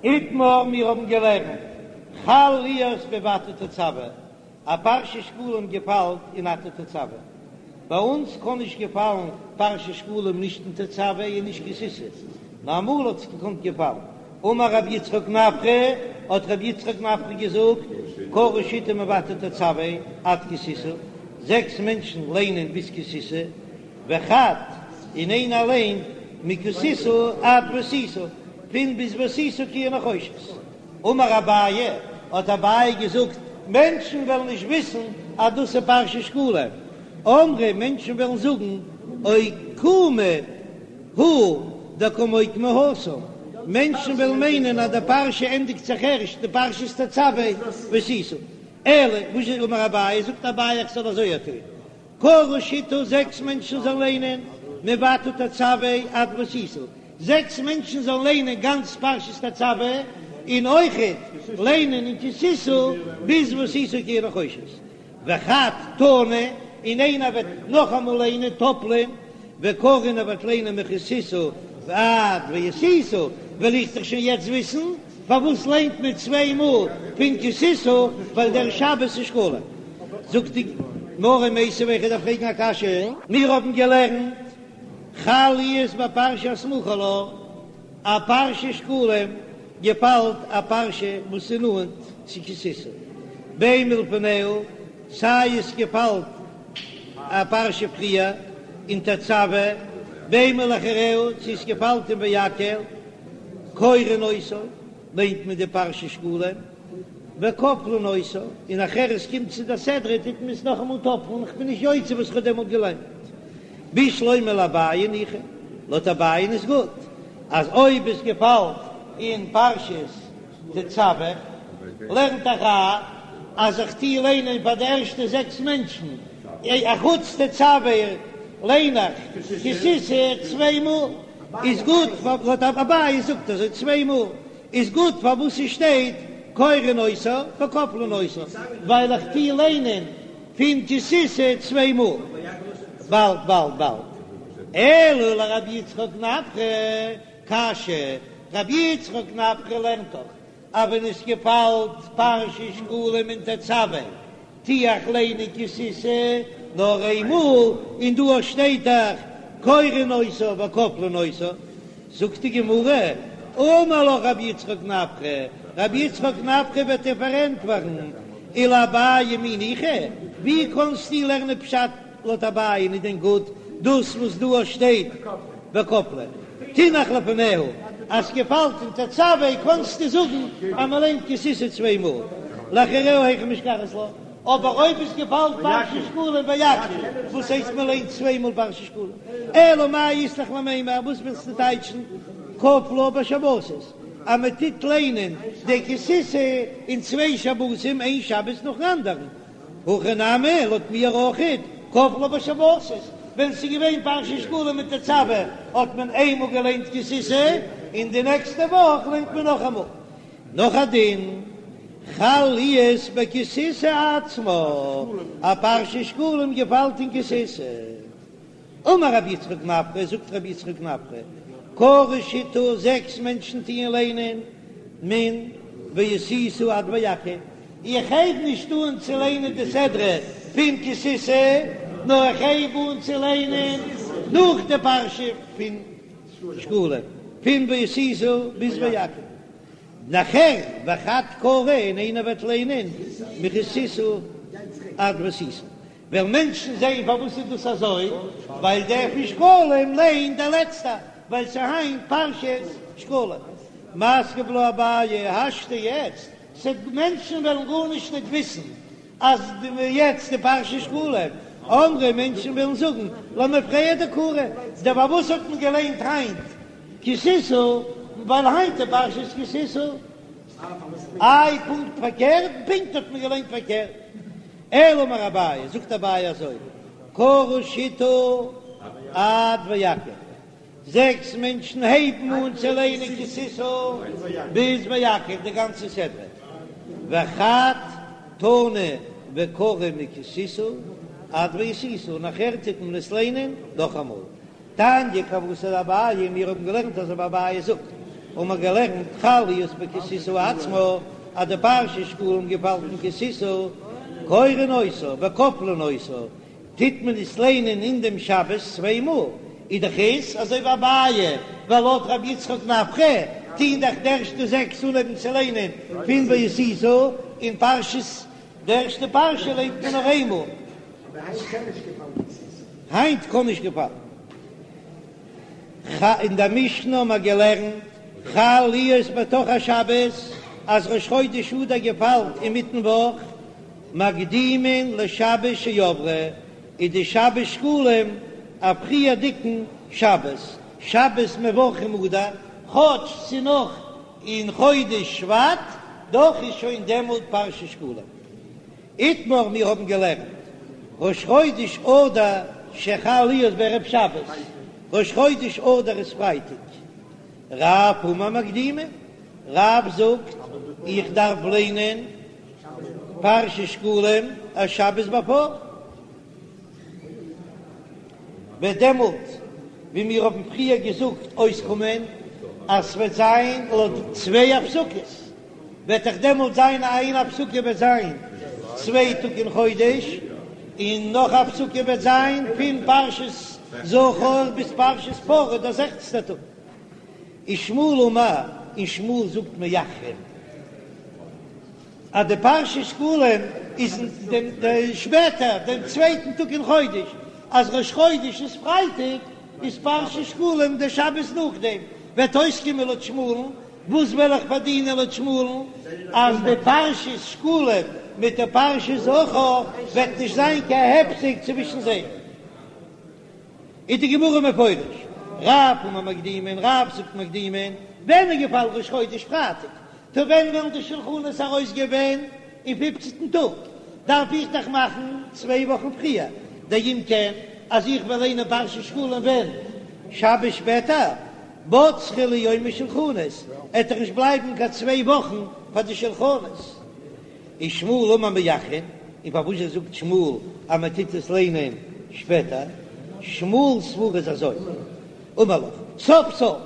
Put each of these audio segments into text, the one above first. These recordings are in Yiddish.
איתמר, מיר האבן געלערנט, חל להיות בואתה תצוה, א פרשת שקלים געפאלט אין אתה תצוה. ביי אונז קען נישט געפאלן פרשת שקלים נישט אין תצוה און נישט כי תשא, נאר אמאל האט עס געקאנט געפאלן. אמר רבי יצחק נפחא, האט רבי יצחק נפחא געזאגט, קרו שיתא מואתה תצוה עד כי תשא, זעקס מענטשן ליינען ביז כי תשא, וחד, און איינער ליינט מכי תשא עד ועשית, פון ביז ועשית כיור נחושת. אמר אביי, האט אביי געזאגט, מענטשן וועלן נישט וויסן אז דאס איז פרשת שקלים, אמרי, מענטשן וועלן זאגן, אוקומי הוא דקא מוקמא התם, מענטשן וועלן מיינען אז די פרשה ענדיגט זיך ערשט די פרשת תצוה ועשית. אלא, וואס איז אמר אביי, זאגט אביי איך זאל אזוי טון, קרו שיתא זעקס מענטשן זאלן ליינען מואתה תצוה עד ועשית, זעקס מענטשן זאלן ליינען גאנץ פרשת תצוה, און אויכעט ליינען אין כי תשא ביז ועשית כיור נחושת, וחד תני, און איינער וועט נאכאמאל ליינען טאפלען, וקרי און ער וועט ליינען מכי תשא עד ועשית, וועל איך דאך שוין יעצט וויסן פארוואס ליינט מען צוויי מאל פון כי תשא, ווייל דער שבת איז שקלים. זאגט די גמרא מיתיבי איך דארף פרעגן א קשיא. מיר האבן געלערנט חל להיות בפרשה הסמוכה לה, א פרשת שקלים געפאלט א פרשה וואס איז נאנט צו כי תשא, בין מלפניה, סיי עס געפאלט א פרשה פריער אין תצוה, בין מלאחריה, צו עס געפאלט אין ויקהל, קורין אותה, ליינט מען די פרשת שקלים, וכופלין אותה, און נאכער עס קומט צו די סדרה טוט מען עס נאכאמאל טאפלן, איך בין נישט יוצא וואס איך האב דעמאלט געליינט. בשלמא לאביי ניחא, לויט אביי איז גוט אז אויב עס געפאלט אין פרשת תצוה, לערנט דאך א אז איך טוה ליינען פאר די ערשטע זעקס מענטשן, אחוץ תצוה ליין איך כי תשא צוויי מאל, איז גוט, לויט אביי זאגט אזוי צוויי מאל איז גוט פארוואס ס'שטייט קורין אותה וכופלין אותה, ווייל איך טוה ליינען פון כי תשא צוויי מאל, באלד באלד באלד, אלא לרבי יצחק נפחא קשיא, רבי יצחק נפחא לערנט דאך אז ווען עס געפאלט פרשת שקלים אין תצוה טו איך ליינען כי תשא נאר איינמאל, און דא שטייט דאך קורין אותה וכופלין אותה, זאגט די גמרא, אמר לך רבי יצחק נפחא, רבי יצחק נפחא וועט דיר פארענטפערן, ולאביי מי ניחא, ווי קענסטו לערנען פשט לויט אביי איז דען גוט דאס וואס דא שטייט וכופלין תינח לפניה, אז ס'געפאלט אין תצוה קענסטו זאגן אז מ'ליינט כי תשא צוויי מאל, לאחריה היכי משכחת לה, אבער אויב עס געפאלט פרשת שקלים ויקהל, וואס הייסט מ'ליינט צוויי מאל פרשת שקלים? אלא מאי אית לך למימר, וואס ווילסטו טייטשן כפלה בשבתות, אז מ'טוט ליינען די כי תשא אין צוויי שבתים איין שבת נאכן אנדערן, הכא נמי, לויט מיר אויכעט, כפלה בשבתות, ווען ס'איז געווען פרשת שקלים אין תצוה האט מען איינמאל געליינט כי תשא, און די נעקסטע וואך ליינט מען נאכאמאל. נאך א דין, חל להיות בכי תשא עצמה, א פרשת שקלים געפאלט אין כי תשא. אמר רבי יצחק נפחא, זאגט רבי יצחק נפחא, קרו שיתא, זעקס מענטשן טוען ליינען מן ועשית עד ויקהל, איך הייב נישט אן צו ליינען די סדרה פון כי תשא, נאר איך הייב אן צו ליינען נאך די פרשה פון שקלים, פון ועשית ביז ויקהל, נאכער וחד קרי און איינער וועט ליינען מכי תשא עד ועשית. וועלן מענטשן זעהן פארוואס איז דאס אזוי, ווייל דער פון שקלים ליינט דער לעצטער, ווייל ס'איז היינט פרשת שקלים. מתקיף לה אביי, השתא יעצט, ס'וועט מענטשן וועלן גארנישט ניט וויסן אז יעצט איז פרשת שקלים, אמרי מענטשן וועלן זאגן למפרע דקרו, דער פארוואס האט מען געליינט היינט כי תשא, ווייל היינט איז פרשת כי תשא. איי פונקט פארקערט? פונקט האט מען געליינט פארקערט. אלא אמר אביי, זאגט אביי אזוי, קרו שיתא עד ויקהל, זעקס מענטשן הייבן אן צו ליינען כי תשא ביז ויקהל די גאנצע סדרה, וחד תני וקרי מכי תשא עד ועשית, און נאכער טוט מען עס ליינען נאכאמאל. תניא כוותיה דאביי, מיר האבן געלערנט אזוי ווי אביי זאגט. האבן מיר געלערנט חל להיות בכי תשא עצמה, אז די פרשת שקלים געפאלט אין כי תשא, קורין אותה וכופלין אותה, טוט מען עס ליינען אין דעם שבת צוויי מאל, איז דאך עס אזוי ווי אביי, ווייל לויט רבי יצחק נפחא טוהן דאך די ערשטע זעקס אנהויבן צו ליינען פון ועשית, און פרשת די ערשטע פרשה ליינט מען נאר איינמאל. היינט קען נישט געפאלן. אין דער משנה האבן מיר געלערנט חל להיות בתוך השבת אז ראש חודש אדר געפאלט אינמיטן וואך, מקדימין לשבת שעברה, איז די שבת שקלים א פריערדיגן שבת, שבת מברכים אדר, כאטש ס'נאך אין חודש שבט, דאך איז שוין דעמאלט פרשת שקלים. איתמר מיר האבן געלערנט ראש חודש אדר שחל להיות בערב שבת, ראש חודש אדר איז פרייטאג, רב אמר מקדימין, רב זאגט איך דארף ליינען פרשת שקלים א שבת בעפאר, וועט דעמאלט ווי מיר האבן פריער געזאגט אויסקומען אז ס'וועט זיין לויט צוויי הפסקות, וועט דאך דעמאלט זיין איין הפסקה וועט זיין צוויי טאג אין חודש, און נאך א הפסקה וועט זיין פון פרשת זכור ביז פרשת פרה דער זעכצנטער טאג. ושמואל אמר, און שמואל זאגט מאחרין אז די פרשת שקלים איז דעם שפעטער דעם צווייטן טאג אין חודש, אז ראש חודש איז פרייטאג איז פרשת שקלים דער שבת נאכדעם, וועט אויסקומען לויט שמואל'ן, וואס וועל איך פארדינען לויט שמואל'ן אז די פרשת שקלים מיט די פרשת זכור וועט נישט זיין קיין הפסק צווישן זיי? איז די גמרא מפרש, רב אמר מקדימין, רב זאגט מקדימין, ווען איז געפאלן ראש חודש פרייטאג? טא ווען וועלן די שלחנות ארויסגיין ווען? אין פופצנטן טאג דארף איך דאך מאכן צוויי וואכן פריער, דאם כן אז איך וועל ליינען פרשת שקלים ווען? שבת שפעטער? בצרי להו יומי שלחנות, עט דאך נישט בלייבן קיין צוויי וואכן פאר די שלחנות. ושמואל אמר מאחרין, און פארוואס זאגט שמואל אז מען טוט עס ליינען שפעטער? שמואל'ס סברא איז אזוי, אמר לך, סוף סוף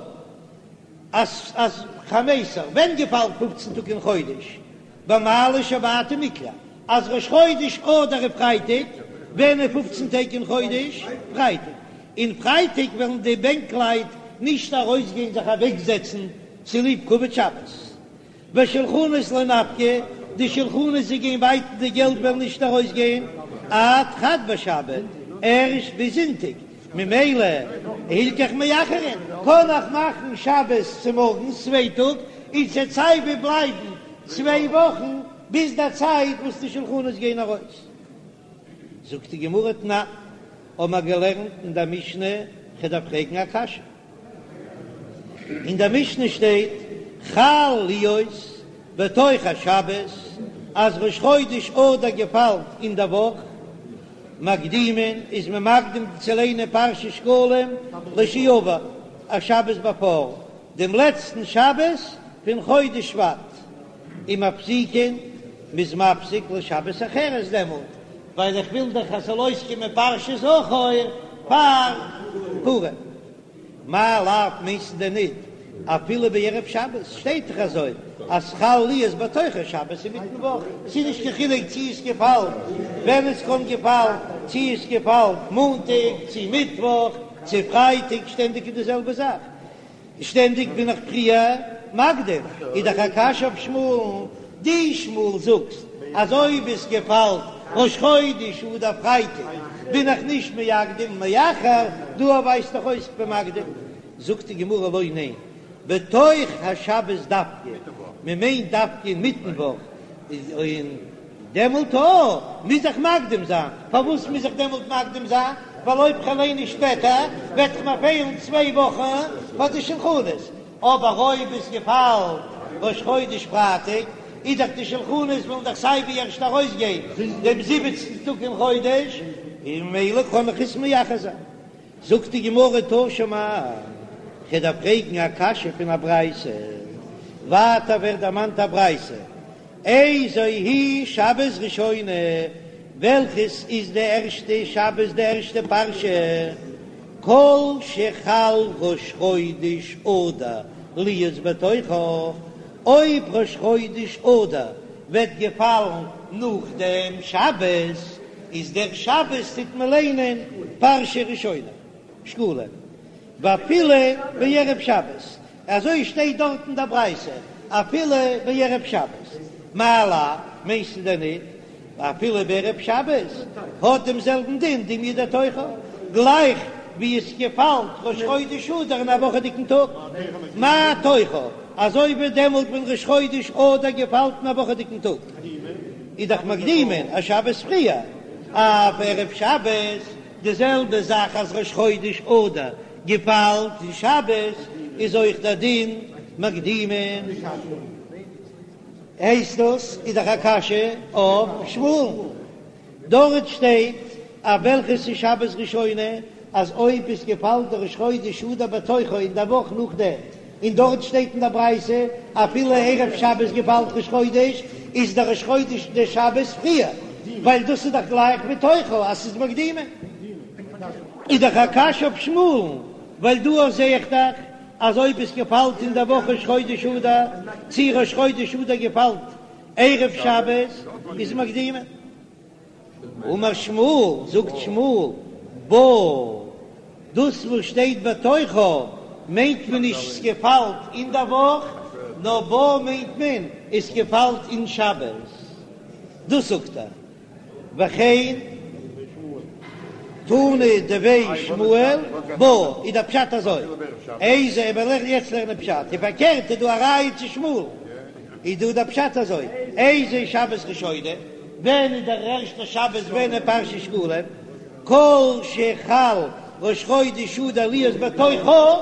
אז אז חמיסר, ווען געפאלט פופצן טאג אין חודש? במעלי שבתא מקלע, אז ראש חודש אדר איז פרייטאג, ווען איז פופצן טעג אין חודש? פרייטאג. און פרייטאג וועלן די בענקלייט נישט ארויסגיין זיך אוועקזעצן צוליב כבוד שבת. ושולחנות לא נפקי, די שולחנות זיי גייען בייטן די געלט וועלן נישט ארויסגיין עד חד בשבת, ערשט ביז זונטאג, ממילא הלכך מאחרין, קען איך מאכן שבת צומארגנס צוויי טאג, און ס'עט סייווי בלייבן צוויי וואכן ביז די צייט וואס די שולחנות גייען ארויס. זאגט די גמרא תנן, האבן מיר געלערנט אין דער משנה, כ'דארף פרעגן א קשיא. אין דער משנה שטייט חל להיות בתוך השבת, אז ראש חודש אדר געפאלט אין דער וואך, מקדימין איז מען מקדים צו ליינען פרשת שקלים לשעבר, א שבת בעפאר דעם לעצטן שבת פון חודש שבט, ומפסיקין, מ'איז מפסיק לשבת אחרת דעמאלט, ווייל איך וויל דאך אז ס'זאל אויסקומען פרשת זכור פאר פורים. מאי לאו מיינסטו דען ניט אפילו בערב שבת שטייט דאך אזוי אז חל להיות בתוך השבת אינמיטן וואך, ס'איז נישט קיין חילוק צי עס געפאלט ווען עס קען געפאלן, צי עס געפאלט מאנטאג צי מיטוואך צי פרייטאג שטענדיג איז די זעלבע זאך. שטענדיג בין איך פריער מקדים, איז דאך א קשיא אויף שמואל'ן, דו שמואל זאגסט אז אויב עס געפאלט ראש חודש אדר פרייטאג בין איך נישט מקדים מאחר, דא ווייזט דאך אויס כ'בין מקדים, זאגט די גמרא לא ניין, בתוך השבת דווקא, מען מיינט דווקא אינמיטן וואך, און דעמאלט אויך מוז איך מקדים זיין, פארוואס מוז איך דעמאלט מקדים זיין? ווייל אויב כ'וועל ליינען שפעטער וועט דאך מיר פעלן צוויי וואכן פאר די שלחנות, אבער אויב עס געפאלט ראש חודש פרייטאג איז דאך די שלחנות וועלן דאך סיי ווי ערשט ארויסגיין דעם זיבעצנטן טאג אין חודש, און ממילא קען איך עס מאחר זיין. זאגט די גמרא תא שמע, כ'דארף פרעגן א קשיא פון א ברייתא, ווייטער ווערט דערמאנט א ברייתא, איזו היא שבת ראשונה, וועלכעס איז די ערשטע שבת די ערשטע פרשה, כל שחל ראש חודש אדר. להיות בתוכה, אויב ראש חודש אדר וועט געפאלן נאך דעם שבת, איז דער שבת טוט מען ליינען פרשה ראשונה, שקלים, ואפילו בערב שבת, אזוי שטייט דארט אין דער ברייתא, אפילו בערב שבת, מאי לאו, מיינסטו דען ניט אפילו בערב שבת האט דעם זעלבן דין דומיא דתוכה, גלייך ווי עס געפאלט ראש חודש אדר אין א וואכעדיגן טאג, מה תוכה, אזוי ווי דעמאלט ווען ראש חודש אדר געפאלט אין א וואכעדיגן טאג, איז דאך מקדימין א שבת פריער, אף ערב שבת, די זעלבע זאך אז ראש חודש אדר געפאלט אין שבת איז אויך דער דין מקדימין. הייסט דאס איז דאך א קשיא אויף שמואל, דארט שטייט אויף וועלכע ס'איז שבת ראשונה אז אויב עס געפאלט די ראש חודש אדר בתוכה אין די וואך נאכדעם, און דארט שטייט אין די ברייתא אפילו ערב שבת געפאלט ראש חודש איז די ראש חודש די שבת פריער, ווייל דאס איז דאך גלייך בתוכה אז ס'איז מקדימין. איז דאך א קשיא אויף שמואל'ן, ווייל דא זעה איך דאך אז אויב עס געפאלט אין דער וואך ראש חודש אדר, צי ראש חודש אדר געפאלט ערב שבת, איז מקדימין. אמר שמואל, זאגט שמואל, בה, דאס וואס שטייט בתוכה מיינט מען נישט ס'געפאלט אין דער וואך, נאר בה מיינט מען עס געפאלט אין שבת, דאס זאגט ער. וכן תנא דבי שמואל בה איז דער פשט אזוי, איזה וועל איך יעצט לערנען פשט, און פארקערט איז דא א ראיה צו שמואל, איז דא דער פשט אזוי, איזה שבת ראשונה, ווען איז דער ערשטער שבת ווען איז פרשת שקלים, כל שחל ראש חודש אדר להיות בתוכה,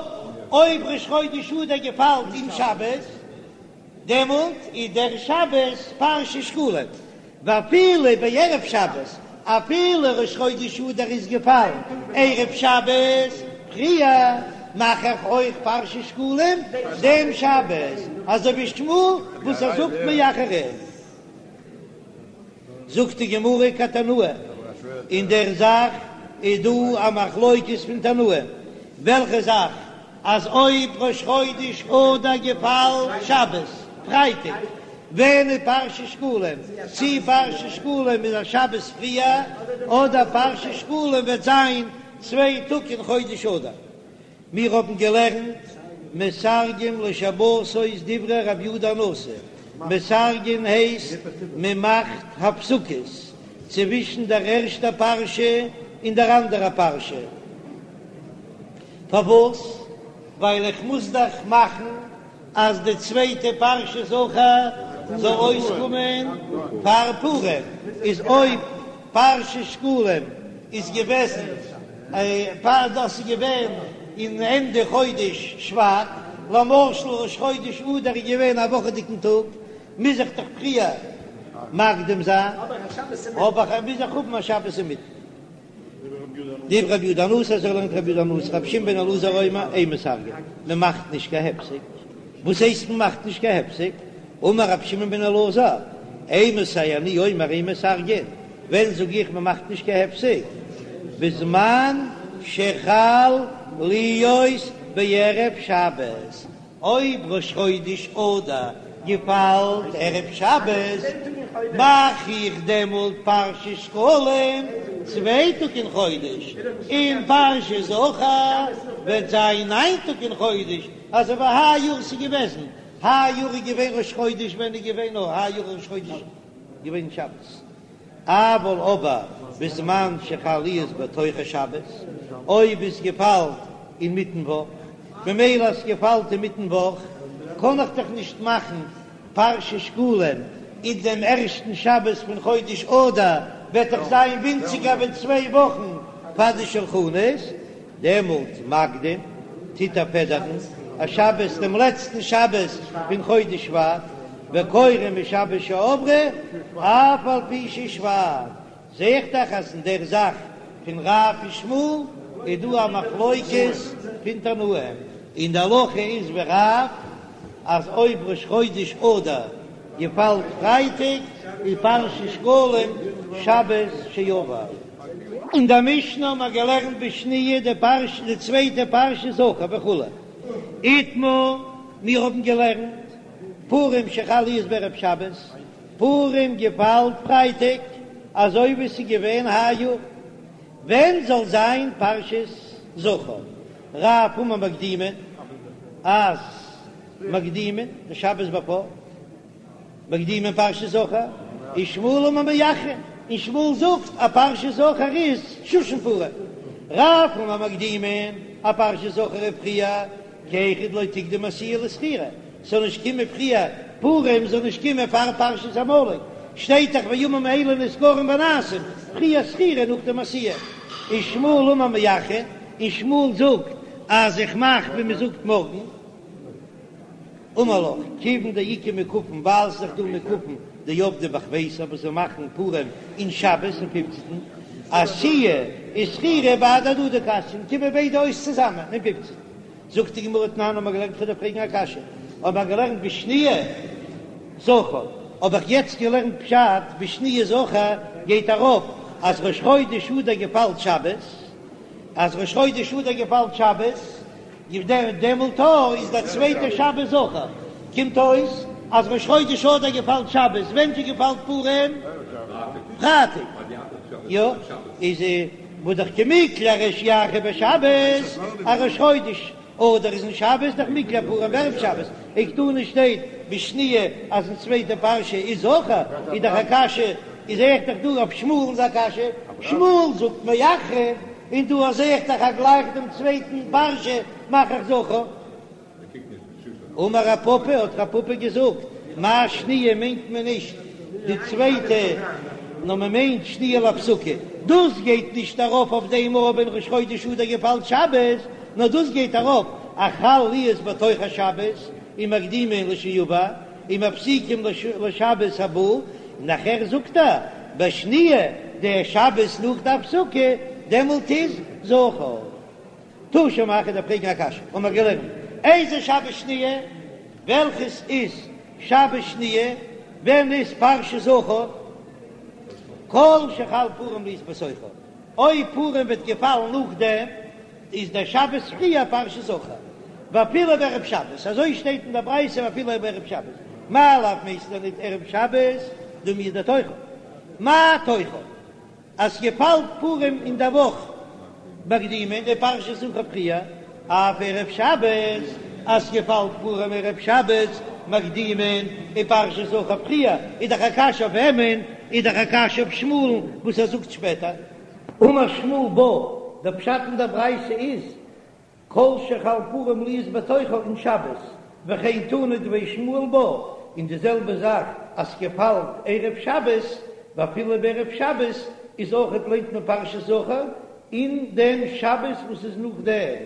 אויב ראש חודש אדר געפאלט אין שבת, דעמאלט איז דער שבת פרשת שקלים, ואפילו בערב שבת, אפילו ראש חודש אדר איז געפאלן ערב שבת פריער, מאך איך אויך פרשת שקלים דעם שבת, אזוי ווי שמואל וואס ער זאגט מאחרין. זאגט די גמרא כתנאי, אין דער זאך איז דא א מחלוקת פון תנאים, וועלכע זאך? אז אויב ראש חודש אדר געפאלט שבת, פרייטאג, ווען איז פרשת שקלים? צי פרשת שקלים איז א שבת פריער, אדער פרשת שקלים וועט זיין צוויי טאג אין חודש אדר. מיר האבן געלערנט מסרגין לשבתות דברי רבי יהודה הנשיא, מסרגין הייסט מען מאכט הפסקות צווישן דער ערשטער פרשה און דער אנדערער פרשה, פארוואס? ווייל איך מוז דאך מאכן אז די צווייטע פרשה זכור זאל אויסקומען פאר פורים, איז אויב פרשת שקלים איז געוועזן פאר דאס איז געווען אין ענדע חודש שבט, למשל ראש חודש אדר איז געווען א וואכעדיגן טאג, מוז איך דאך פריער מקדים זיין, האב איך מוז איך האבן א שבת אינמיטן. דברי רבי יהודה הנשיא אזוי לערנט רבי יהודה הנשיא רבי שמעון בן אלעזר אומר אין מסרגין מען מאכט נישט קיין הפסק, וואס הייסט מען מאכט נישט קיין הפסק? אמר רבי שמעון בן אלעזר אימתי אני אומר אין מסרגין, ווען זאג איך מען מאכט נישט קיין הפסק? בזמן שחל להיות בערב שבת, אויב ראש חודש אדר געפאלט ערב שבת, מאך איך דעמאלט פרשת שקלים צוויי טאג אין חודש, און פרשת זכור וועט זיין ניין טאג אין חודש, אזוי ווי היי יאר ס'איז געוועזן, היי יאר איז געווען ראש חודש ווען איז געווען נאר היי יאר ראש חודש געווען שבת. אבל אבער בזמן שחל להיות בתוך השבת, אויב עס געפאלט אינמיטן וואך, ממילא אז ס'געפאלט אינמיטן וואך קען איך דאך נישט מאכן פרשת שקלים אין דעם ערשטן שבת פון חודש אדר, וועט דאך זיין ווינציגער ווי צוויי וואכן פאר די שלחנות, דעמאלט מקדים טוט ער פעדערן א שבת דעם לעצטן שבת פון חודש שבט, וקורא משבת שעברה אף על פי ששבט, זע איך דאך אז אין דער זאך פון רב און שמואל איז דא א מחלוקת פון תנאים, און די הלכה איז ווי רב אז אויב ראש חודש אדר געפאלט פרייטאג איז פרשת שקלים שבת שעבר. אין דער משנה האבן מיר געלערנט בשניה די פרשה די צווייטע פרשה זכור וכו' איתמר. מיר האבן געלערנט פורים שחל להיות בערב שבת, פורים געפאלט פרייטאג, אזוי ווי ס'איז געווען היי יאר. ווען זאל זיין פרשת זכור? רב אמר מקדימין אז מקדימין די שבת בעפאר מקדימין פרשת זכור, און שמואל אמר מאחרין, און שמואל זאגט אז פרשת זכור איז שושן פורים. רב אמר מקדימין אז פרשת זכור איז פריער, כי היכי דלא תקדים עשיה לזכירה, ס'זאל נישט קומען פריער, פורים זאל נישט קומען פאר פרשת עמלק, שטייט דאך והימים האלה נזכרים ונעשים, פריער זכירה נאכדעם עשיה. און שמואל אמר מאחרין, און שמואל זאגט אז איך מאך ווי מ'זאגט מארגן. אמר לך, כיוון דאיכא מוקפין, ווייל ס'איז דאך דא מוקפין דעבדי בחמיסר וואס זיי מאכן פורים אין שבת אין פופצנטן, עשיה וזכירה בהדי הדדי קא אתיין, קומען ביידע אויס צוזאמען אין פופצנטן. זאגט די גמרא תנן האבן מיר געלערנט כ'וועל דיר פרעגן א קשיא, האבן מיר געלערנט בשניה זכור, האב איך יעצט געלערנט פשט בשניה זכור גייט ארויף אז ראש חודש אדר געפאלט שבת, אז ראש חודש אדר געפאלט שבת, דעמאלט איז דער צווייטער שבת זכור, קומט אויס אז ראש חודש אדר געפאלט שבת, ווען זשע געפאלט פורים? פרייטאג, יא, איז והא דאך קמיקלע ריש ירחא בשבת, אז ראש חודש אדר איז אין שבת, דאך מיקלע פורים בערב שבת, וקתני שטייט בשניה אז אין צווייטע פרשה איז זכור, איז דאך א קשיא, איז זעה איך דאך דא אויף שמואל'ן א קשיא, שמואל זאגט מאחרין. און דא זעה איך דאך אז גלייך דעם צווייטן פרשה מאך איך זכור. אמר רב פפא, האט רב פפא געזאגט, מאי שניה מיינט מען נישט די צווייטע, נאר מען מיינט שניה להפסקה. דאס גייט נישט ארויף אויף דעם אויב ווען ראש חודש אדר געפאלט שבת, נאר דאס גייט ארויף אז חל להיות בתוך השבת ומקדימין לשעבר ומפסיקים לשבת הבא, נאכער זאגט ער בשניה די שבת נאך די הפסקה דעמאלט איז זכור. תא שמע כ'וועל דיר פרעגן א קשיא האבן מיר געלערנט איזה שבת שניה וועלכעס איז שבת שניה ווען איז פרשת זכור כל שחל פורים להיות בתוכה אויב פורים וועט געפאלן נאכדעם איז דער שבת פריער פרשת זכור, ואפילו בערב שבת, אזוי שטייט אין דער ברייתא ואפילו בערב שבת, מאי לאו מיינסטו דען ניט ערב שבת דומיא דתוכה, מה תוכה אז ס'געפאלט פורים אין דער וואך מקדימין ופרשת זכור פריער, אף ערב שבת אז ס'געפאלט פורים ערב שבת מקדימין ופרשת זכור פריער, איז דאך א קשיא אויף וועמען? איז דאך א קשיא אויף שמואל'ן וואס ער זאגט שפעטער. אמר שמואל בה, דער פשט אין דער ברייתא איז, כל שחל פורים להיות בתוכה אין שבת, וכן תנא דבי שמואל בה, און די זעלבע זאך אז ס'געפאלט ערב שבת, ואפילו בערב שבת איז אויכעט ליינט מען פרשת זכור אין דעם שבת וואס איז נאכדעם.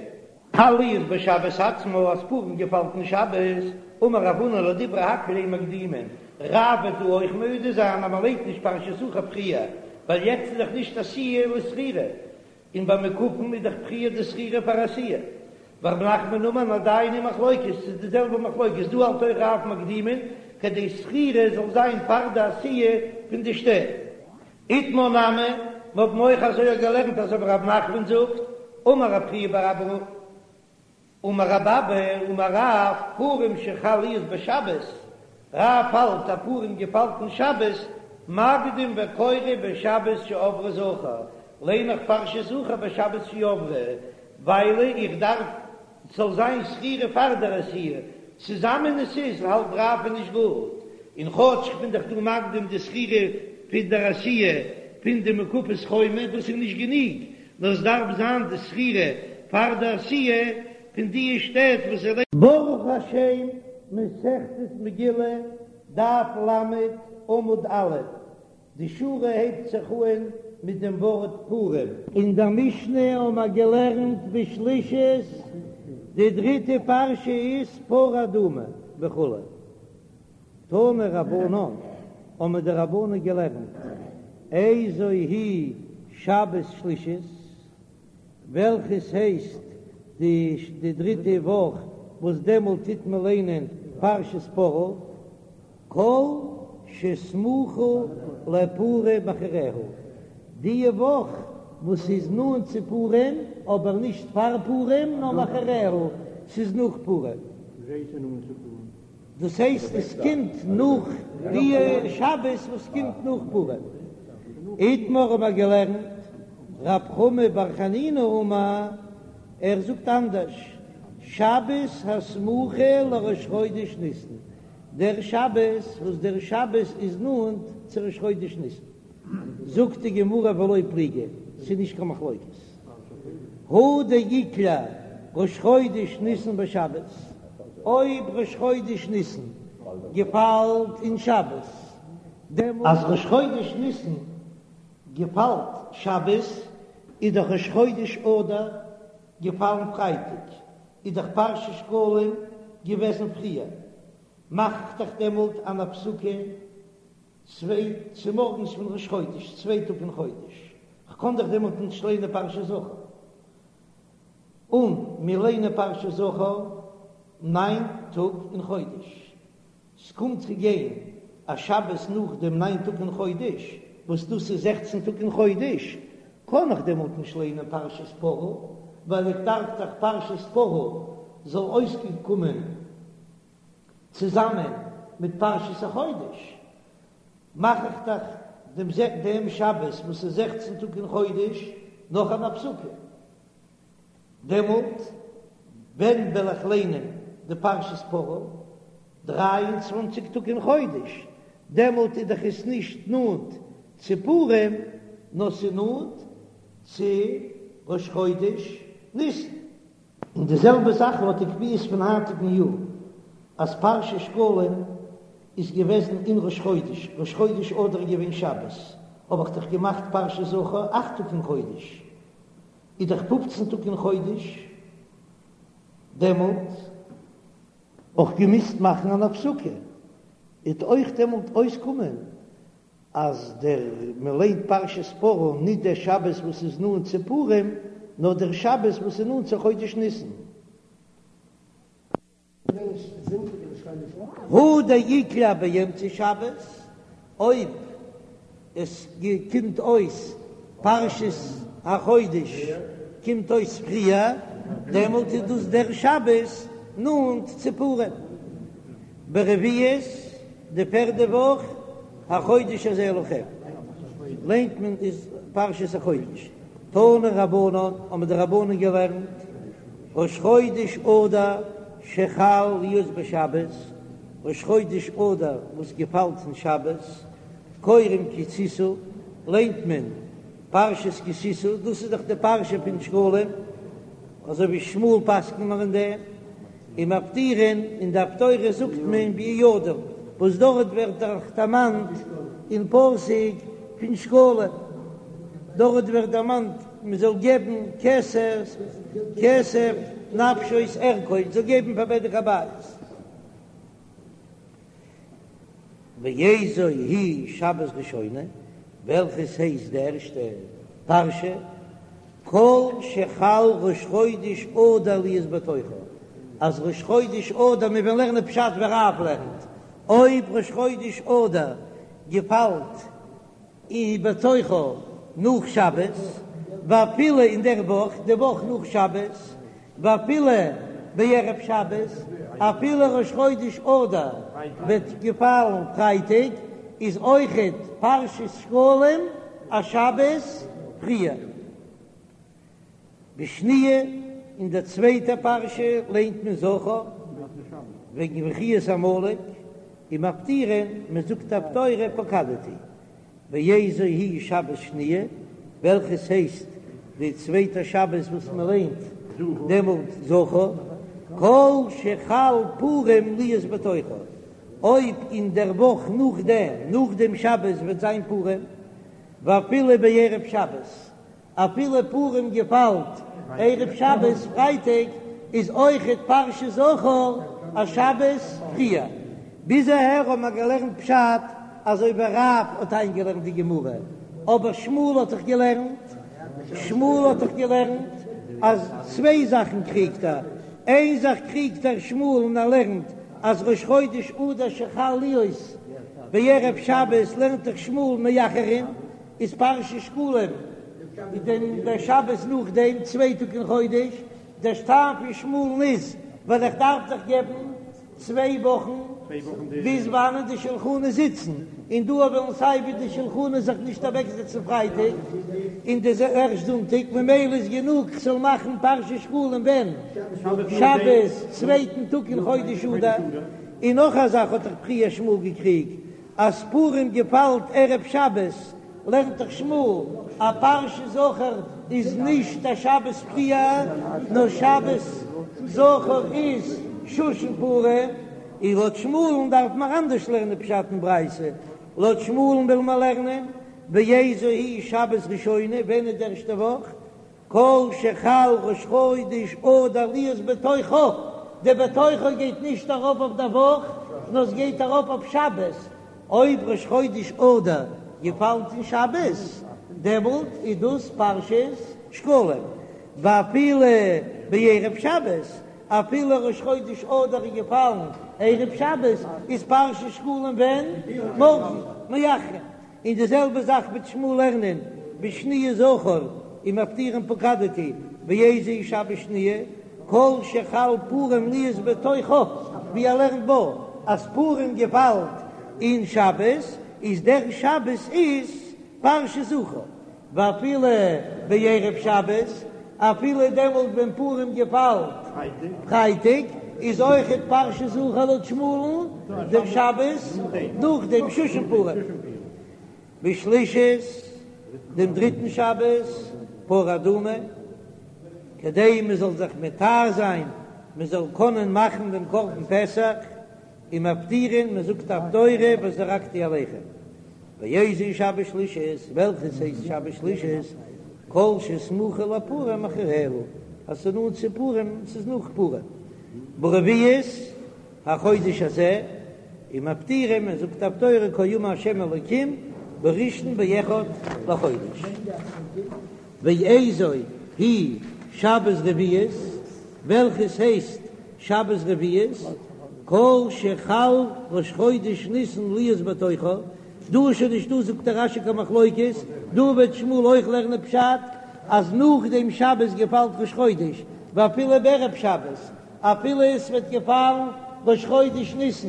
חל להיות בשבת עצמה אז פורים געפאלט אין שבת, אמר רב הונא לדברי הכל אין מקדימין, רב וועט דא אויך מודה זיין אז מען ליינט נישט פרשת זכור פריער, ווייל יעצט איז דאך נישט עשיה לזכירה, און ביי מוקפין איז דאך פריער די זכירה פאר עשיה. ורב נחמן אמר עדיין היא מחלוקת, ס'איז די זעלבע מחלוקת, דא האלט אויך רב מקדימין, כדי זכירה זאל זיין פאר די עשיה פון די שטעט. איתמר נמי, מיר האבן אויך אזוי געלערנט אזוי ווי רב נחמן זאגט, אמר רב חייא בר אבא אמר רב אבא אמר רב, פורים שחל להיות בשבת, רב האלט אז פורים געפאלט אין שבת, מקדים וקורא בשבת שעברה זכור, ליין איך פרשת זכור בשבת שעברה, ווייל איך דארף ס'זאל זיין זכירה פאר דער עשיה, צוזאמען עס איז האלט רב איז נישט גוט, און כאטש כ'בין דאך דא מקדים די זכירה פון דער עשיה פון די מוקפות חומה, דאס איז נישט גענוג, נאר עס דארף זיין די זכירה פאר די עשיה פון די שטעט וואס זיי. ברוך השם, מסכת מגילה, דף ל, עמוד א', די שורה הייבט זיך אהן מיט דעם ווארט פורים. אין דער משנה האבן מיר געלערנט בשלישית, די דריטע פרשה איז פרה אדומה וכו'. תנו רבנן, האבן די רבנן געלערנט, איזו היא שבת שלישית, וועלכעס הייסט די דריטע וואך וואס דעמאלט טוט מען ליינען פרשת פרה, כל שסמוכה לפורים אחריה, די וואך וואס איז נאנט צו פורים, אבער נישט פאר פורים נאר מאחריה, ס'איז נאך פורים. דאס הייסט עס קומט נאך די שבת וואס קומט נאך פורים. איתמר האבן מיר געלערנט רב חמא בר חנינא אמר, ער זאגט אנדערש, שבת הסמוכה לראש חודש ניסן, דער שבת וואס דער שבת איז נאנט צו ראש חודש ניסן. זאגט די גמרא ולא פליגי, ס'איז נישט קיין מחלוקת. הא דאיקלע ראש חודש ניסן בשבת, אויב ראש חודש ניסן געפאלט אין שבת, דעמאלט אז ראש חודש ניסן געפאלט שבת, איז דאך ראש חודש אדר געפאלן פרייטאג, איז דאך פרשת שקלים געוועזן פריער, מאך איך דאך דעמאלט אן הפסקה צוויי צומארגנס פון ראש חודש, צוויי טאג אין חודש, כ'קען דאך דעמאלט נישט ליינען פרשת זכור, און מיר ליינען פרשת זכור ניין טאג אין חודש, ס'קומט צו גיין א שבת נאך דעם ניין טאג אין חודש, וואס דאס איז זעכצן טאג אין חודש, קען איך דעמאלט נישט ליינען פרשת פרה, ווייל איך דארף דאך פרשת פרה זאל אויסקומען צוזאמען מיט פרשת החודש, מאך איך דאך דעם דעם שבת וואס איז זעכצן טאג אין חודש נאך אן הפסקה, דעמאלט ווען וועל איך ליינען די פרשת פרה? דריי און צוואנציג טאג אין חודש, דעמאלט איז דאך עס נישט נאנט צו פורים, נאר ס'איז נאנט צו ראש חודש ניסן. און די זעלבע זאך לויט די קביעות פון היינטיגן יאר, אז פרשת שקלים איז געוועזן אין ראש חודש, ראש חודש אדר איז געווען שבת, האב איך דאך געמאכט פרשת זכור אכט טאג אין חודש, איז דאך פופצן טאג אין חודש, דעמאלט אויך געמוזט מאכן אן הפסקה, וועט אויך דעמאלט אויסקומען אז דער מען ליינט פרשת פרה ניט דער שבת וואס איז נאנט צו פורים, נאר דער שבת וואס איז נאנט צו חודש ניסן. הא דאיקלע באמצע שבת, אויב עס קומט אויס פרשת החודש קומט אויס פריער, דעמאלט איז דאס דער שבת נאנט צו פורים. ברביעית, די פערדע וואך, החודש הזה לכם, ליינט מען איז פרשת החודש, תנו רבנן, האבן די רבנן געלערנט, ראש חודש אדר שחל להיות בשבת, ראש חודש אדר וואס געפאלט אין שבת, קורין כי תשא, ליינט מען פרשת כי תשא, דאס איז דאך די פרשה פון שקלים, אזוי ווי שמואל פסק'נט מיר אין דעם. ומפטירין, אין די הפטורה זאגט מען ביהוידע, וואס דארט ווערט דאך דערמאנט אין פסוק פון שקלים, דארט ווערט דערמאנט מען זאל געבן כסף, כסף נפשות ערכות, זאל געבן פאר בדק הבית. ואיזו היא שבת ראשונה, וועלכעס הייסט די ערשטע פרשה, כל שחל ראש חודש אדר להיות בתוכה, אז ראש חודש אדר, מיר וועלן לערנען פשט ווי רב לערנט, אויב ראש חודש אדר געפאלט אין בתוכה נאך שבת, ואפילו אין דער וואך, די וואך נאך שבת, ואפילו בערב שבת, אפילו ראש חודש אדר וועט געפאלן פרייטאג, איז אויכעט פרשת שקלים א שבת פריער. בשניה, אין דער צווייטער פרשה ליינט מען זכור וועגן מחיית עמלק, ומפטירין, מען זאגט הפטורה פקדתי. ואיזו היא שבת שניה, וועלכעס הייסט די צווייטע שבת וואס מען ליינט דעמאלט זכור, כל שחל פורים להיות בתוכה, אויב אין דער וואך נאכדעם, נאך דעם שבת וועט זיין פורים, ואפילו בערב שבת, אפילו פורים געפאלט ערב שבת פרייטאג איז אויכעט פרשת זכור א שבת פריער. ביז אהער האבן מיר געלערנט פשט אזוי ווי רב האט איינגעלערנט די גמרא, אבער שמואל האט דאך געלערנט, שמואל האט דאך געלערנט אז צוויי זאכן קריגט ער, איין זאך קריגט ער שמואל און ער לערנט אז ראש חודש אדר שחל להיות בערב שבת לערנט דאך שמואל מאחרין, איז פרשת שקלים איז דען דער שבת נאך דעם צוויי טאג אין חודש, דער טעם פון שמואל'ן איז ווייל איך דארף דאך געבן. צוויי וואכן ביז וואנען די שלחנות זיצן, און דא וועלן סיי ווי די שלחנות זיך נישט אוועקזעצן פרייטאג און די ערשט זונטאג, ממילא איז גענוג כ'זאל מאכן פרשת שקלים ווען? שבת צווייטן טאג אין חודש אדר, און נאך א זאך האט דאך פריער שמואל געקריגט אז פורים געפאלט ערב שבת, לערנט דאך שמואל אז פרשת זכור איז נישט א שבת פריער, נאר שבת זכור איז שושן פורים, און לויט שמואל'ן דארף מען אנדערש לערנען פשט אין ברייתא, לויט שמואל'ן וויל מען לערנען ואיזו היא שבת ראשונה, ווען איז די ערשטע וואך? כל שחל ראש חודש אדר להיות בתוכה, די בתוכה גייט נישט ארויף אויף די וואך, נאר עס גייט ארויף אויף שבת, אויב ראש חודש אדר געפאלט אין שבת, דעמאלט איז דאס פרשת שקלים, ואפילו בערב שבת, אפילו ראש חודש אדר איז געפאלן ערב שבת, איז פרשת שקלים ווען? מארגן, מאחרין. און די זעלבע זאך וועט שמואל לערנען בשניה זכור ומפטירין פקדתי ואיזו היא שבת שניה כל שחל פורים להיות בתוכה ווי ער לערנט בה אז פורים געפאלט אין שבת איז דער שבת איז פרשת זכור ואפילו בערב שבת אפילו דעמאלט ווען פורים געפאלט פרייטאג איז אויכעט פרשת זכור לויט שמואל'ן דעם שבת נאך דעם שושן פורים בשלישית דעם דריטן שבת פרה אדומה כדי מען זאל זיך מטהר זיין מען זאל קענען מאכן דעם קרבן פסח. ומפטירין, מען זאגט הפטורה וזרקתי עליכם. ואיזו היא שבת שלישית, וועלכעס הייסט שבת שלישית? כל שסמוכה לפורים אחריה, אז ס'איז נאנט צו פורים, ס'איז נאך פורים. ברביעית החודש הזה, ומפטירין, מען זאגט הפטורה כה אמר השם אלוקים בראשון באחד לחודש. ואיזו היא שבת רביעית, וועלכעס הייסט שבת רביעית, כל שחל ראש חודש ניסן להיות בתוכה, דא איז שוין נישטא זאגט דער רש"י קיין מחלוקת, דא וועט שמואל אויך לערנען פשט אז נאך דעם שבת געפאלט ראש חודש, ואפילו בערב שבת, אפילו עס וועט געפאלן ראש חודש ניסן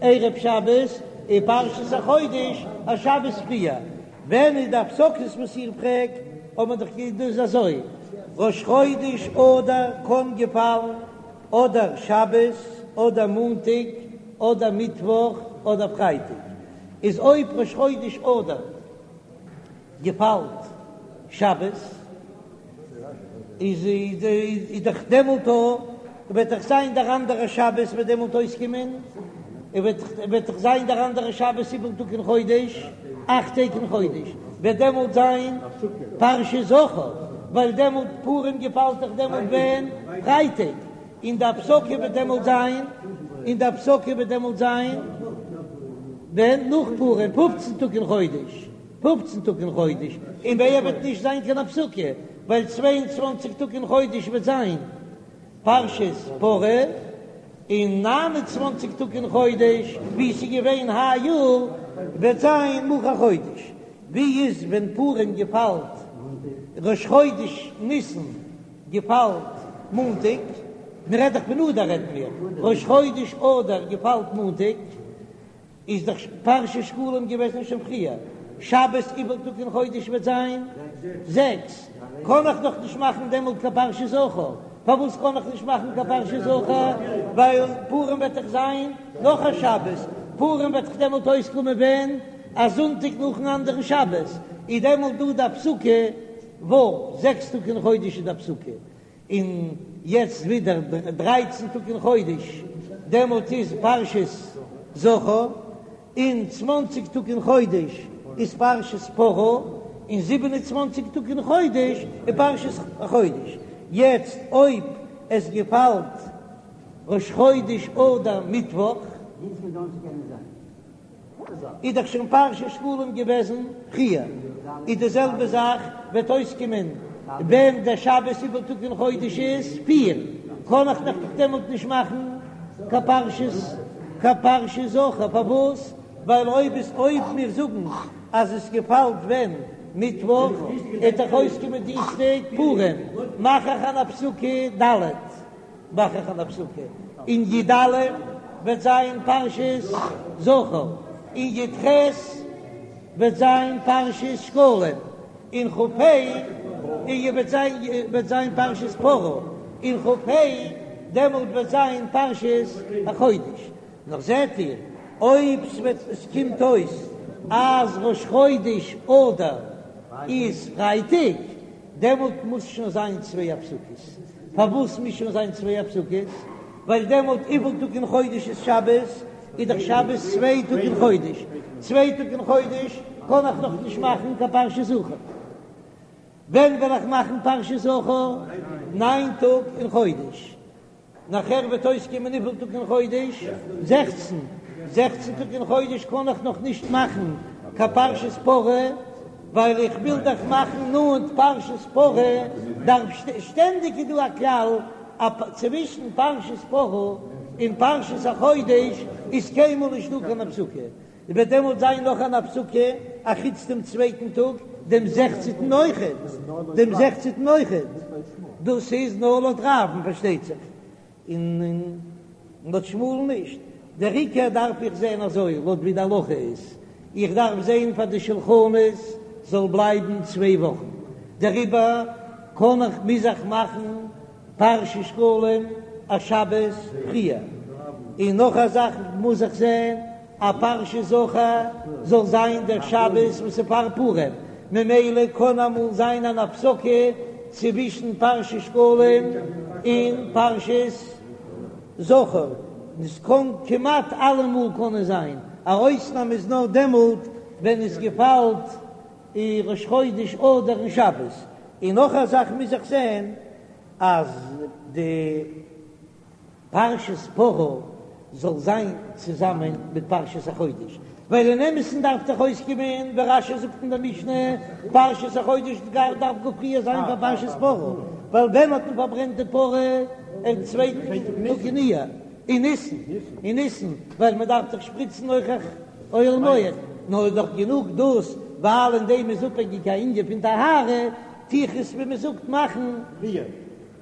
ערב שבת, איז פרשת החודש א שבת פריער, ווען איז די הפסקות וואס איר פרעגט, האט מען דאך געזאגט דאס איז אזוי, ראש חודש אדר קען געפאלן אדער שבת אדער מאנטאג אדער מיטוואך אדער פרייטאג, איז אויב ראש חודש אדר געפאלט שבת איז איז דאך דעמאלט וועט דאך זיין דער אנדערע שבת וועט דעמאלט אויסקומען, וועט וועט דאך זיין דער אנדערע שבת וויפיל טאג אין חודש, אכט טעג אין חודש, וועט דעמאלט זיין פרשת זכור, ווייל דעמאלט פורים געפאלט דאך דעמאלט ווען? פרייטאג, און די הפסקה וועט דעמאלט זיין, און די הפסקה וועט דעמאלט זיין ווען? נאך פורים, פופצן טאג אין חודש. פופצן טאג אין חודש, און באייר וועט נישט זיין קיין הפסקה, ווייל 22 טאג אין חודש וועט זיין פרשת פרה, און 29 טאג אין חודש, ווי ס'איז געווען היי יאר, וועט זיין מחר חודש. ווי איז ווען פורים געפאלט ראש חודש ניסן געפאלט מאנטאג? מ'רעדט דאך פון אדר רעדן מיר, ראש חודש אדר געפאלט מאנטאג. איז דאך פרשת שקלים געוועזן שוין פריער, שבת וויפיל טאג אין חודש וועט זיין זעקס, קען איך דאך נישט מאכן דעמאלט קיין פרשת זכור, פארוואס קען איך נישט מאכן קיין פרשת זכור? ווייל פורים וועט דאך זיין נאך א שבת, פורים וועט דאך דעמאלט אויסקומען ווען? א זונטאג נאכן אנדערן שבת, איז דעמאלט דא די הפסקה ו', זעקס טאג אין חודש איז די הפסקה, און יעצט ווידער דרייצן טאג אין חודש, דעמאלט איז פרשת זכור, און צוואנציג טאג אין חודש איז פרשת פרה, און זיבן און צוואנציג טאג אין חודש איז פרשת החודש. יעצט אויב עס געפאלט ראש חודש אדר מיטוואך, איז דאך שוין פרשת שקלים געוועזן פריער, איז די זעלבע זאך וועט אויסקומען ווען דער שבת וויפיל טאג אין חודש איז פיר, קען איך דאך דעמאלט נישט מאכן קיין פרשת קיין פרשת זכור, פארוואס? ווייל אויב עס אויב מיר זאגן אז עס געפאלט ווען מיטוואך, וועט דאך אויסקומען דינסטאג פורים, מאך איך אן הפסקה ד'. מאך איך אן הפסקה אין י"א. וועט זיין פרשת זכור, און י"ח וועט זיין פרשת שקלים, און כ"ה און וועט זיין וועט זיין פרשת פרה, און כ"ה דעמאלט וועט זיין פרשת החודש. נאר זעט איר, אויב ס'וועט עס קומט אויס אז ראש חודש אדר איז פרייטאג, דעמאלט מוז שוין זיין צוויי הפסקות. פארוואס מוז שוין זיין צוויי הפסקות? ווייל דעמאלט וויפיל טאג אין חודש איז שבת? איז דאך שבת צוויי טאג אין חודש, צוויי טאג אין חודש קען איך נאך נישט מאכן קיין פרשת זכור. ווען וועל איך מאכן פרשת זכור? ניין טאג אין חודש. נאכער וועט אויסקומען וויפיל טאג אין חודש? 16. 16 טאג אין חודש קען איך נאך נישט מאכן קיין פרשת פרה, ווייל איך וויל דאך מאכן נאנט פרשת פרה, דארף שטענדיג איז דא א כלל אז צווישן פרשת פרה און פרשת החודש איז קיינמאל נישט דא קיין הפסקה, וועט דעמאלט זיין נאך אן הפסקה אחוץ דעם צווייטן טאג, דעם זעכצנטן אויכעט, דעם זעכצנטן אויכעט, דאס איז נאר לויט רב'ן פארשטייט זיך, און לויט שמואל'ן נישט, דער עיקר דארף איך זען אזוי לויט ווי די הלכה איז, איך דארף זען פאר די שלחנות זאל בלייבן צוויי וואכן, דעריבער קען איך מוז איך מאכן פרשת שקלים א שבת פריער, און נאך א זאך מוז איך זען אז פרשת זכור זאל זיין דער שבת וואס איז פאר פורים, ממילא קען אמאל זיין אן הפסקה צווישן פרשת שקלים און פרשת זכור, עס קען כמעט אלעמאל קען עס זיין, א אויסנאם איז נאר דעמאלט ווען עס געפאלט ראש חודש אדר אין שבת, און נאך א זאך מוז איך זען אז די פרשת פרה זאל זיין צוזאמען מיט פרשת החודש, ווייל אין אמת'ן דארף דאך אויסקומען ווי רש"י זאגט אין די משנה, פרשת החודש דארף גאר פריער זיין פאר פרשת פרה, ווייל ווען האט מען פארברענט די פרה? אין צווייטן טאג אין אייר, אין ניסן, אין ניסן, ווייל מען דארף דאך שפריצן אויך אוהל מועד, נאר איז דאך גענוג דאס, ווייל אין דעם איז אפהענגיק א ענין פון טהרה, טו איך עס ווי מען זאגט מאכן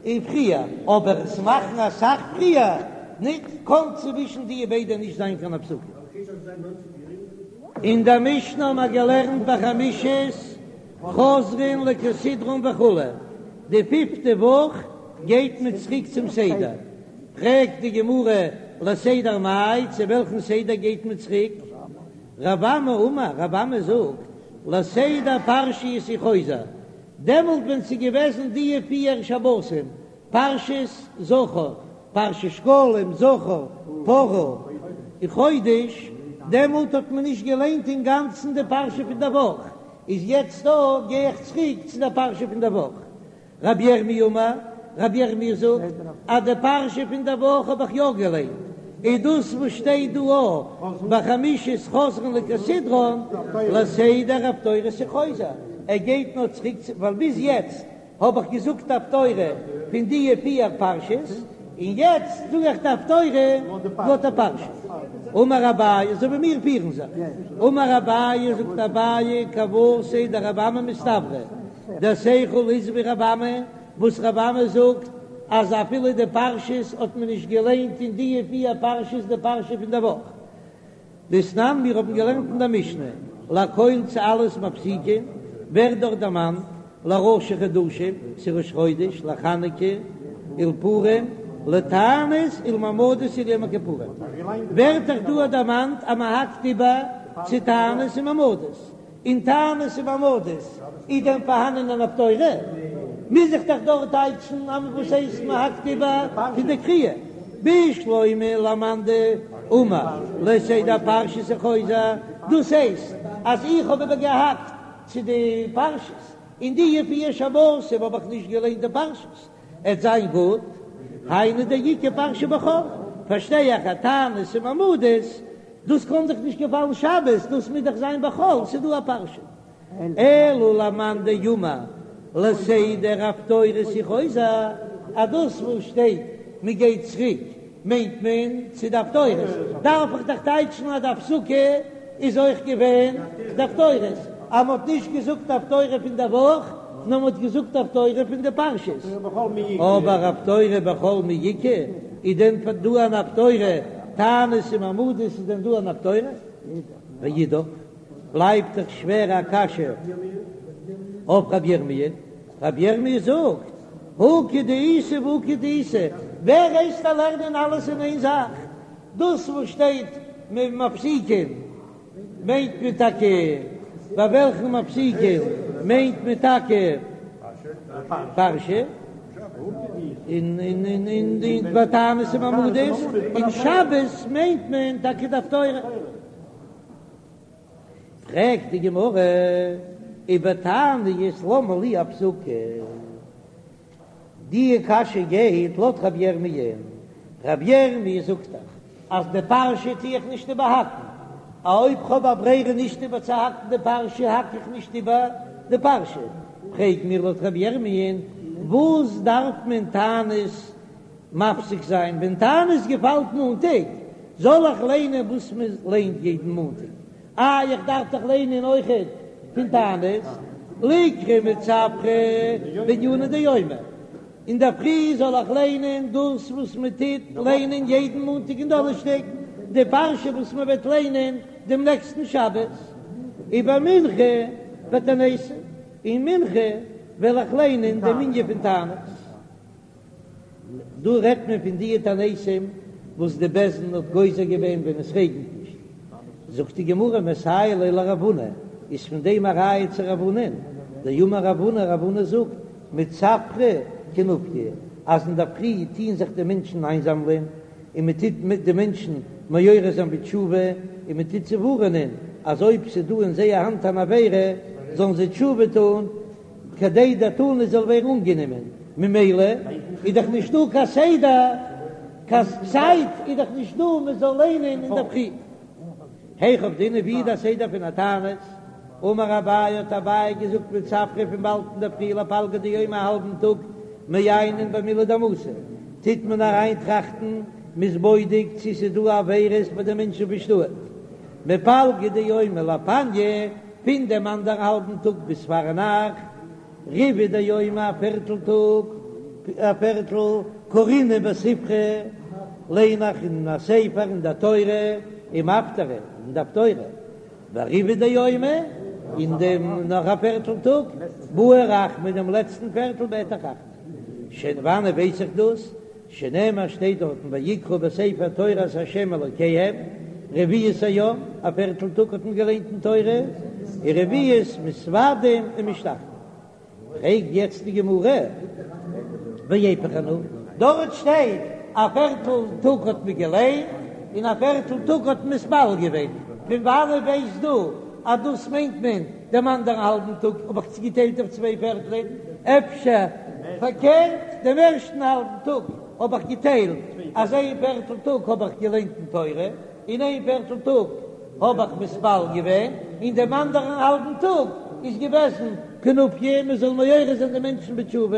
און פריער, אבער עס מאכן אסאך פריער ניט, קאן צווישן די ביידע נישט זיין קיין הפסקה. אין דער משנה האבן מיר געלערנט בחמישית חוזרין לכסדרן וכו', די פיפטע וואך גייט מען צוריק צום סדר, פרעגט די גמרא לסדר מאי, צו וועלכן סדר גייט מען צוריק? רב אמי אמר, רב אמי זאגט, לסדר פרשיות הוא חוזר, דעמאלט ווען ס'איז געוועזן דיע פיהר שבתים, פרשת זכור, פרשת שקלים, זכור, פרה, און חודש, דעמאלט האט מען נישט געליינט אינגאנצן די פרשה פון דער וואך, איז יעצט דא גיי איך צוריק צו דער פרשה פון דער וואך. רבי ירמי' אמר, רבי ירמי' זאגט אז די פרשה פון דער וואך האב איך יא געליינט, איז דאס וואס שטייט דא א בחמישית חוזרין לכסדרן לסדר הפטורות הוא חוזר, ער גייט נאר צוריק צו ווייל ביז יעצט האב איך געזאגט הפטורה פון די פיר פרשות, און יעצט זאג איך די הפטורה לויט די פרשה. אמר אביי, אזוי ווי מיר פירן זיך, אמר אביי, זאגט אביי, כוותיה דרבי אמי מסתברא, דער שכל איז ווי רבי אמי, וואס רבי אמי זאגט אז אפילו די פרשות האט מען נישט געליינט אין די פיר פרשות די פרשה פון די וואך. דתנן מיר האבן געלערנט אין דער משנה, לכל צו אלעס מפסיקין, ווערט דארט דערמאנט לראשי חדשים, צו ראש חודש, לחנוכה, ולפורים, לתענית ולמעמדות וליום הכיפורים, ווערט דאך דא דערמאנט אז מען האקט איבער צו תענית און מעמדות. אין תענית און מעמדות איז דען פארהאנען אן הפטורה? מוז איך דאך דארט טייטשן אז וואס הייסט מען האקט איבער פון די קריאה? בשלמא למאן דאמר לסדר פרשיות הוא חוזר, דאס הייסט אז איך האב איבער געהאקט צו די פרשיות, אין די פיר שבתים האב איך נישט געליינט די פרשיות, עט זיין גוט, היינו דאיכא פרשה בחול, פארשטיי איך אז תענית און מעמדות, דאס קען דאך נישט געפאלן שבת, דאס מוז דאך זיין בחול, ס'איז דא א פרשה. אלא למאן דאמר לסדר הפטורות הוא חוזר, אז דאס וואס שטייט מען גייט צוריק מיינט מען צו די הפטורות, דארף איך דאך טייטשן אז די הפסקה איז אויך געווען די הפטורות, אז מ'האט נישט געזאגט הפטורה פון די וואך, נאר מ'האט געזאגט הפטורה פון די פרשות. אבער הפטורה בחול מי איכא, איז דען דא אן הפטורה? תענית און מעמדות איז דען דא אן הפטורה? ואידך, בלייבט דאך שווער א קשיא אויף רבי ירמי', רבי ירמי' זאגט, הא כדאיתא והא כדאיתא, ווער הייסט דיר לערנען אלעס אין איין זאך? דאס וואס שטייט מפסיקין מיינט מען טאקע ביי וועלכן מפסיקין מיינט מען טאקע פרשה, און און און ביי תענית און מעמדות, און שבת מיינט מען טאקע די הפטורה. פרעגט די גמרא ובתעניות למה לי הפסקה? די קשיא גייט לויט רבי ירמי', רבי ירמי' זאגט דאך אז די פרשה טו איך נישט איבערהאקן, א אויב כ'האב א ברירה נישט איבערצוהאקן די פרשה האק איך נישט איבער די פרשה, פרעג מיר לויט רבי ירמי' וואס דארף מען תענית מפסיק זיין ווען תענית געפאלט מאנטאג, זאל איך ליינען וואס מען ליינט יעדן מאנטאג? איי איך דארף דאך ליינען אויכעט פון תענית, ליקרי מצפרא בענינא דיומא, אינדערפרי זאל איך ליינען דאס וואס מען טוט ליינען יעדן מאנטאג און דאנערשטאג, די פרשה וואס מען וועט ליינען דעם נעקסטן שבת, ובמנחה בתעניתא, און מנחה וועל איך ליינען דעם ענין פון תענית. דא רעדט מען פון די תעניתים וואס די בית דין האט גוזר געווען ווען עס רעגנט נישט, זאגט די גמרא מסייע ליה לרב הונא, איז פון דעם א ראיה צו רב הונא'ן, דאמר רב הונא, רב הונא זאגט, מצפרא כינופיא, אז אינדערפרי טוען זיך די מענטשן איינזאמלען, און מען טוט מיט די מענטשן מעורר זיין בתשובה, און מען טוט זיי ווארענען אז אויב ס'איז דא אין זייער האנט אן עבירה זאלן זיי תשובה טון, כדי דער תענית זאל ווערן אנגענומען, ממילא איז דאך נישט דא קיין סדר, קיין צייט איז דאך נישט דא מען זאל ליינען אינדערפרי. היכי עבדינן ווי איז דער סדר פון א תענית? אמר אביי האט אביי געזאגט מצפרא פון באלד אינדערפרי לפלגא דיומא א האלבן טאג מעיינין במילי דמתא טוט מען אריין טראכטן מ'איז בודק צו ס'איז דא עבירות ביי די מענטשן פון שטאט מפלגא דיומא לפניא פון דעם אנדערן האלבן טאג ביז פארנאכט, ריבעא דיומא א פערטל טאג, א פערטל קרינן בספרא, ליין איך אין א ספר אין דער תורה, ומפטרי אין די הפטורה, וריבעא דיומא, אין דעם נאך א פערטל טאג, בעי רחמי דעם לעצטן פערטל בעט איך רחמים. פון וואנען ווייס איך דאס? שנאמר שטייט דארטן ויקראו בספר תורת ה' אלוקיהם, רביעית היום, א פערטל טאג האט מען געליינט אין תורה, ורביעית מתודים ומשתחוים. פרעגט יעצט די גמרא, ואיפוך אנא, דארט שטייט א פערטל טאג האט מען געליינט און א פערטל טאג האט מען מתפלל געווען, פון וואנען ווייסט דו אז דאס מיינט מען דעם אנדערן האלבן טאג האב איך צוגעטיילט אויף צוויי פערטלען, אפשר פארקערט, דעם ערשטן האלבן טאג האב איך געטיילט אז איין פערטל טאג האב איך געליינט אין תורה, און איין פערטל טאג האב איך מתפלל געווען, און דעם אנדערן האלבן טאג איז געוועזן כינופיא, מען זאל מעורר זיין די מענטשן בתשובה.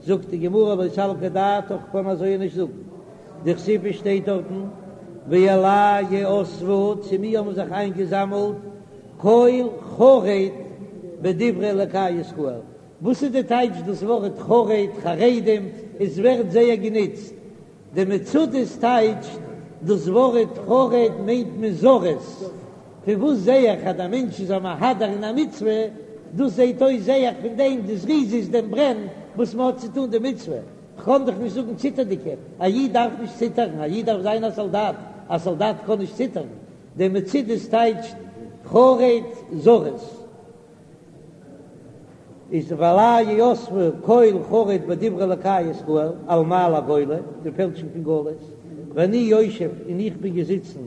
זאגט די גמרא לא סלקא דעתך קען אזוי נישט זאגן, דכתיב עס שטייט דארטן ואלי יאספו, צו מיר האבן זיך איינגעזאמלט כל חרד בדברי אלקי ישראל, וואס איז די טייטש דאס ווארט חרד, חרדים, עס ווערט זייער גענוצט, די מצודות טייטשט דאס ווארט חרד מיינט מען זריז, פון וואס זעה איך אז דער מענטש איז א מהדר אין א מצוה, דאס זעהט אויס זעה איך פון דעם די זריזות דעם ברען וואס מען האט צו טון די מצוה, כ'קען דאך נישט זאגן ציטערדיגע, א איד דארף נישט ציטערן, א איד דארף זיין א סאלדאט, א סאלדאט קען נישט ציטערן, די מצודות טייטשט חרד זריז איז ואלי יאספו כל חרד בדברי אלקי ישראל על מעל הגולה, די פעלשונג פון גלות, ואני יושב און איך בין געזיצן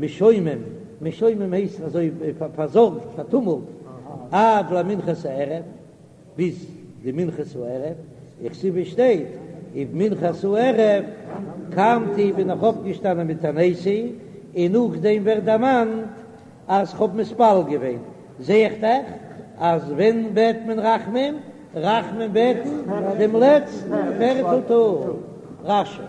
משומם, משומם הייסט אזוי פארזארגט פארטומלט, עד למנחת הערב. ביז די מנחת הערב, וכתיב עס שטייט ובמנחת הערב קמתי בין איך אויפגעשטאנען מתעניתי, און נאכדעם ווערט דערמאנט אז כ'האב מתפלל געווען, זע איך דאך אז ווען בעט מען רחמים? רחמים בעטן דעם לעצטן פערטל טאג. רש"י.